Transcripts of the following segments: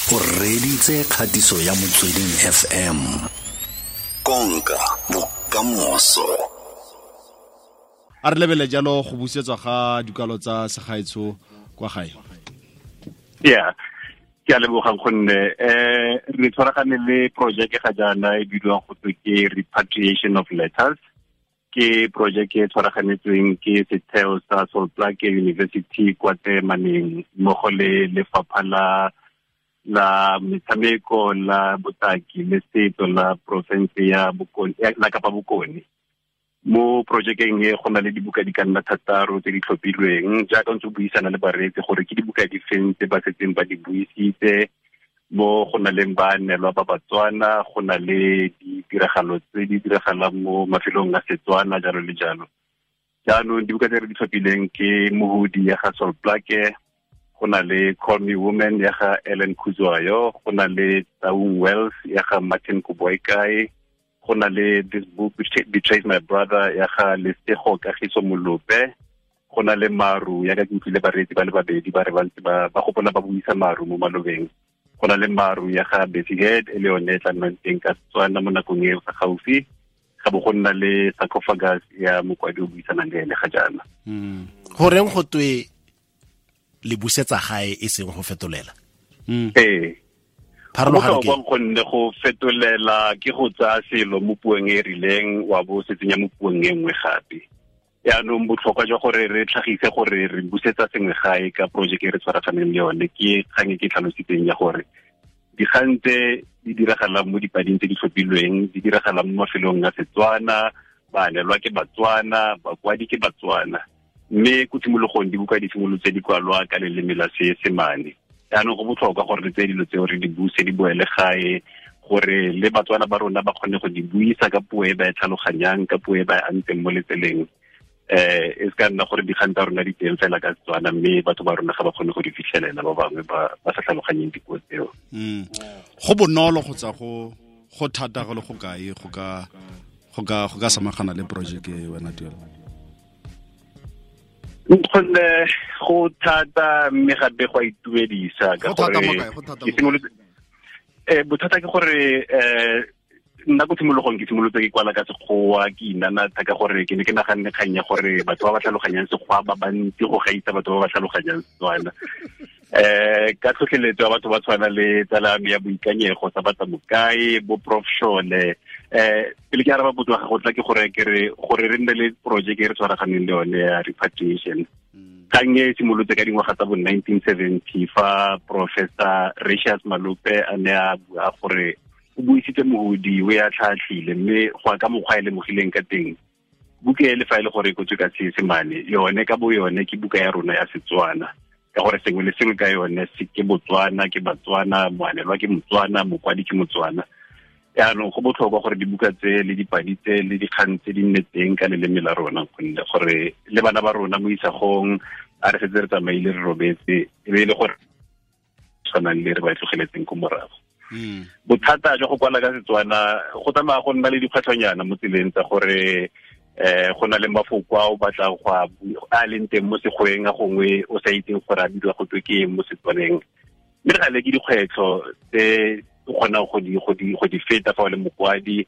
O reditse kgatiso ya Motsweding FM. Konka bokamoso. A re lebele jalo go busetswa ga dikalo tsa segaetsho kwa gae. Yeah. Ke a lebogang gonne re tshwaragane le project ga jaana e bidiwang go twe ke repatriation of letters. Ke project e tshwaraganetsweng ke setheo sa Sol Plaatje University kwa Temaneng mmogo le lefapha la metshameko la botaki le setso la province ya Bokone la Kapa Bokone. Mo projekeng e go na le dibuka di ka nna 6 tse di tlhophilweng jaaka ntse o buisana le bareetsi gore ke dibuka di feng tse ba setseng ba di buisitse. Mo go na leng baanelwa ba Batswana, go na le ditiragalo tse di diragalang mo mafelong a Setswana, jalo le jalo. Jaanong dibuka tse re di tlhophileng ke Mohudi ya ga Sol Plaatje, go na le Call Me Woman ya ga Ellen Kuzwayo, go na le Taung Wells ya ga Martin Koboikae, go na le This Book Betrays My Brother ya ga Lesego Kagiso Molope, go na le Maru ya ka ke utlwile bareetsi ba le babedi ba re ba ntse ba gopola ba buisa Maru mo malobeng. Go na le Maru ya ga Bessie Head e le yone e tla nnang teng ka Setswana mo nakong e fa gaufi. Ga bo go nna le Sarcophagus ya mokwadi o buisanang le ene ga jaana. Goreng go twe le busetsa gae e seng go fetolela? Ee. Pharologano ke gonne go fetolela ke go tsaya selo mo puong e rileng wa bo se tsenya mo puong e nngwe gape. Yaanong botlhokwa jwa gore re tlhagise gore re busetsa sengwe gae ka project e re tshwaraganeng le yone ke kgang e ke tlhalositseng ya gore dikgang tse di diragalang mo dipading tse di tlhophilweng di diragalang mo mafelong a Setswana, baanelwa ke Batswana, bakwadi ke Batswana. Mme ko tshimologong dibuka di simolotse di kwalwa ka leleme la Seesemane. Jaanong go botlhokwa gore re tseye dilo tseo re di buse di boele gae gore le Batswana ba rona ba kgone go di buisa ka puo e ba e tlhaloganyang, ka puo e ba e antseng mo letseleng. E se ka nna gore dikgang tsa rona di teng fela ka Setswana mme batho ba rona ga ba kgone go di fitlhelela, ba bangwe ba sa tlhaloganyeng dipuo tseo. Go bonolo kgotsa go thata go le go kae go ka samagana le project e wena Tuelo? Gonne go thata mme gape go a itumedisa ka gore bothata ke gore nna ko tshimologong ke simolotse ke kwala ka Sekgowa, ke inanatha ka gore ke ne ke naganne kgang ya gore batho ba ba tlhaloganyang Sekgowa ba bantsi go gaisa batho ba ba tlhaloganyang Setswana. Ka tlhotlheletso ya batho ba tshwana le tsala ya boikanyego sa batla mokae bo Prof Shole. Pele ke araba potso ya gago tla ke gore ke re gore re nne le project e re tshwaraganeng le yone ya repatriation. Kgang e simolotse ka dingwaga tsa bo 1970 fa Professor Ratius Malope a ne a bua gore o buisitse Mohudi o ya tlhatlhile, mme go ya ka mokgwa e lemogileng ka teng buka e le fa e le gore e kotswe ka Seesemane yone ka bo yone ke buka ya rona ya Setswana, ka gore sengwe le sengwe ka yone se ke Botswana, ke Batswana, moanelwa ke Motswana, mokwadi ke Motswana. Jaanong go botlhokwa gore dibuka tse le dipadi tse le dikgang tse di nne teng ka leleme la rona, gonne gore le bana ba rona mo isagong a re setse re tsamaile re robetse e be e le gore tshwanang le re ba tlogeletseng ko morago. Bothata jwa go kwala ka Setswana go tsamaya go nna le dikgwetlhonyana mo tseleng tsa gore go na le mafoko a o batlang go a leng teng mo Sekgoeng a gongwe o sa itseng gore a bidiwa go twe ke eng mo Setswaneng. Mme re gale ke dikgwetlho tse o kgonang go di feta fa o le mokwadi.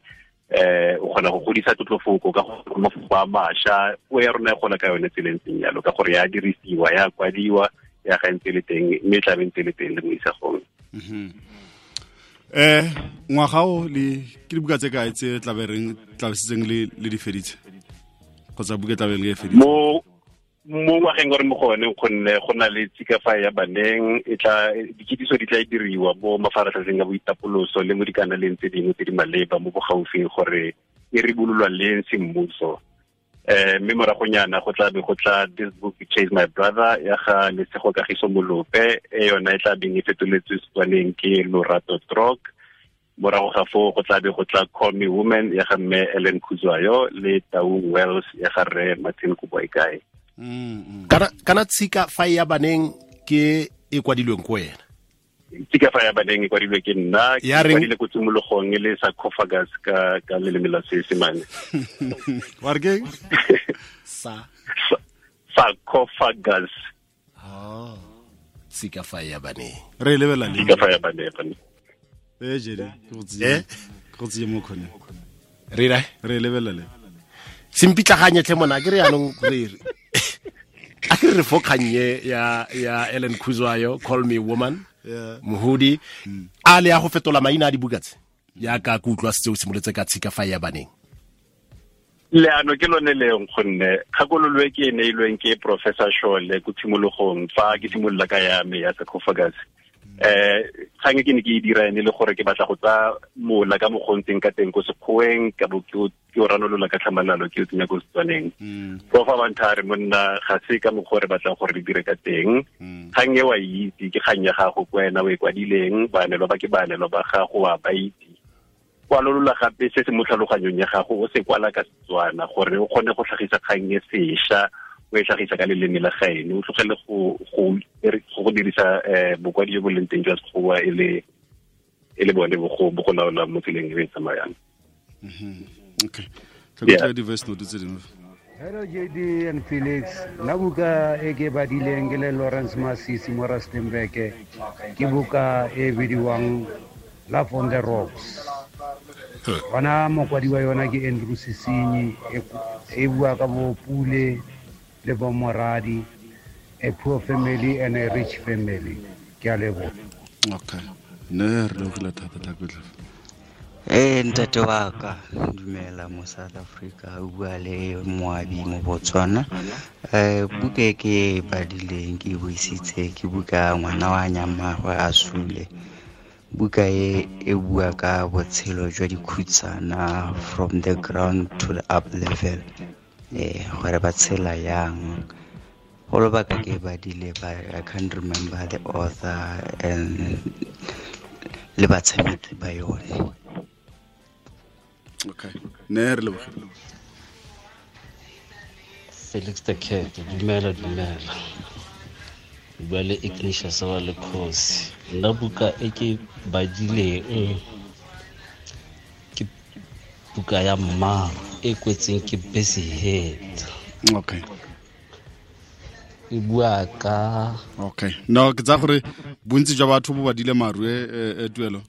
O kgona go godisa tlotlofoko ka go mafoko a mašwa, puo ya rona e gola ka yone tseleng tseng jalo ka gore ya dirisiwa, ya kwadiwa, ya ga ntse le teng mme e tla be ntse le teng le mo isagong. Ngwaga o le ke dibuka tse kae tse tla le di feditse kgotsa buka tla be le e feditse? Mo ngwageng gore mo go one gonne go na le tshikafa ya baneng e tla dikitsiso di tla diriwa mo mafaratlhatlheng a boitapoloso le mo dikanaleng tse dingwe tse di maleba mo bogaufing gore e ribololwa leng semmuso. Mme moragonyana go tla be go tla This Book Betrays My Brother ya ga Lesego Kagiso Molope, e yona e tla beng e fetoletswe Setswaneng ke Lorato Trok. Morago ga foo go tla be go tla Call Me Woman ya ga mme Ellen Kuzwayo le Taung Wells ya ga rre Martin Koboikae. Kana tshika fa ya baneng ke e kwadilweng ko wena? Tshika fa ya baneng e kwadilwe ke nna, ke kwadile ko tshimologong e le sarcophagus ka leleme la Seesemane. Wa re ke? Sarcophagus. Tshika fa ya baneng. Re lebelela le. Tshika fa ya baneng. Eh jedi, ke go tsiye. Ke go tsiye mo khone. Re ra? Re lebelela le. Sempitlaganye tlhe mona ke re yanong re re. A ke re fo kgannye ya Ellen Khuzwayo, Call Me Woman. Yeah. Mohudi a le ya go fetola maina a dibuka tse. Ya ka ke utlwa setse o simolotse ka Tshika fa ya baneng. Leano ke lone leng gonne kgakololo e ke e neilweng ke Professor Shole ko tshimologong fa ke simolola ka ya me ya sarcophagus. Kgang e ke ne ke e dira ene le gore ke batla go tsaya mola ka mogontseng ka teng ko sekgoweng ka bo ke o ranolola ka tlhamalalo ke o tsenya ko Setswaneng. Prof a bantha re monna ga se ka mokgwa re batlang gore re dire ka teng. Kgang e wa itse ke kgang ya gago ko wena o e kwadileng, baanelwa ba ke baanelwa ba gago wa ba itse. Kwalolola gape se se mo tlhaloganyong ya gago o se kwala ka Setswana gore o kgone go tlhagisa kgang e sešwa, o e tlhagisa ka leleme la gaeno, o tlogele go dirisa bokwadi jo bo leng teng jwa Sekgowa e le bone bo go laola mo tseleng e e tsamayang. Okay. Tlhokomela di-voice note tse dingwe. Hello JD and Felix. Nna buka e ke badileng ke le Lawrence Masisi mo Rustenburg ke buka e bidiwang Love on the Rocks. Bona mokwadi wa yona ke Andrew Sesinyi, e bua ka bo Pule le bo Moradi, a poor family and a rich family. Ke a leboha. Okay. Ne re lebogile thata Tlhakotlhe. Ntate wa ka, dumela mo South Africa, o bua le Moabi mo Botswana. Buka e ke e badileng ke e buisitse ke buka ngwana wa nyamagwe a sule. Buka e e bua ka botshelo jwa dikhutsana from the ground to the up level. Gore ba tshela yang. Go lobaka ke badile, but I can't remember the author and le batshameki ba yone. Okay. Ne re lebogile. Felix the Cat, dumela dumela. Bua le Ignatius wa le Khosi. Nna buka e ke badileng ke buka ya Mmaro e kwetseng ke Bessie Head. Okay. E bua ka Okay. No, ke tsa gore bontsi jwa batho bo badile maru e tuelo.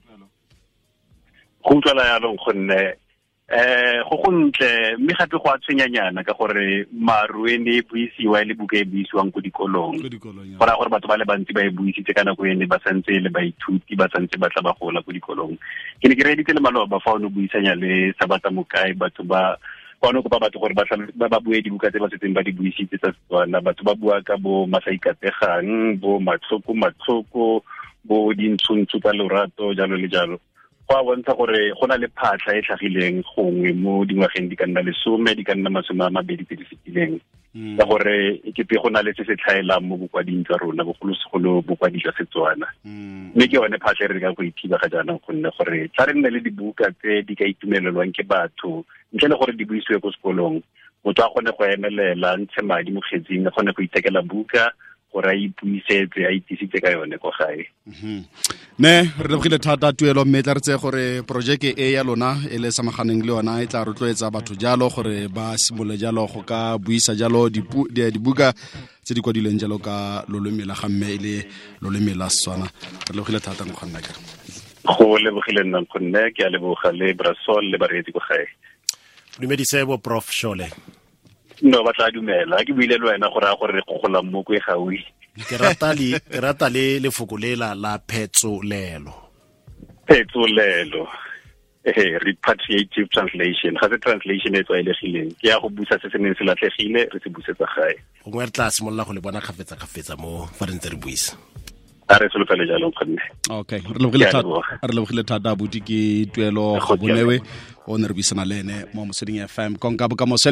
Go utlwala yalo gonne go gontle mme gape go a tshwenyanyana ka gore maru e ne e buisiwa e le buka e buisiwang ko dikolong. Go raya gore batho ba le bantsi ba e buisitse ka nako ene ba santse le baithuti ba santse ba tla ba gola ko dikolong. Ke ne ke reeditse le maloba fa o ne o buisanya le Sabata Mokae, batho ba kwano kopa batho gore ba bue dibuka tse ba setseng ba di buisitse tsa Setswana. Batho ba bua ka bo Masaikategang, bo Matlhoko Matlhoko, bo Dintshontsho tsa Lorato, jalo le jalo. Go a bontsha gore go na le phatlha e tlhagileng gongwe mo dingwageng di ka nna 10, di ka nna 20 tse di fetileng. Ka gore e kete go na le se se tlhaelang mo bokwading jwa rona, bogolosegolo bokwadi jwa Setswana. Mme ke yone phatlha e re ka go ithiba ga jaanong gonne gore tla re nne le dibuka tse di ka itumelelwang ke batho ntle le gore di buisiwe ko sekolong. Motho a kgone go emelela, ntshe madi mo kgetsing, a kgone go ithekela buka gore a ipuisetse, a itisitse ka yone ko gae. Ne re lebogile thata tuelo, mme tla re tseye gore projeke e ya lona e le samaganeng le yona e tla rotloetsa batho jalo gore ba simolole jalo go ka buisa jalo dibuka tse di kwadilweng jalo ka loleme la ga mme e le loleme la Setswana. Re lebogile thata nkgonne ka. Go lebogile nna nkgonne, ke a leboga le Brasol le bareetsi ko gae. Dumedise bo Prof Shole. No, ba tla dumela. Ke buile le wena gore a gore re gogola mo ko e gaufi. Ke rata le lefoko le la phetsolelo. Phetsolelo. Repatriative translation. Ga se translation e tlwaelegileng. Ke ya go busa se se neng se latlhegile, re se busetsa gae. Gongwe re tla simolola go le bona kgafetsa mo fa re ntse re buisa. A re solofele jalo nkgonne. Okay, re lebogile thata abuti ke Tuelo Gabonewe o ne re buisana le ene mo Motsweding FM. Konka bokamoso.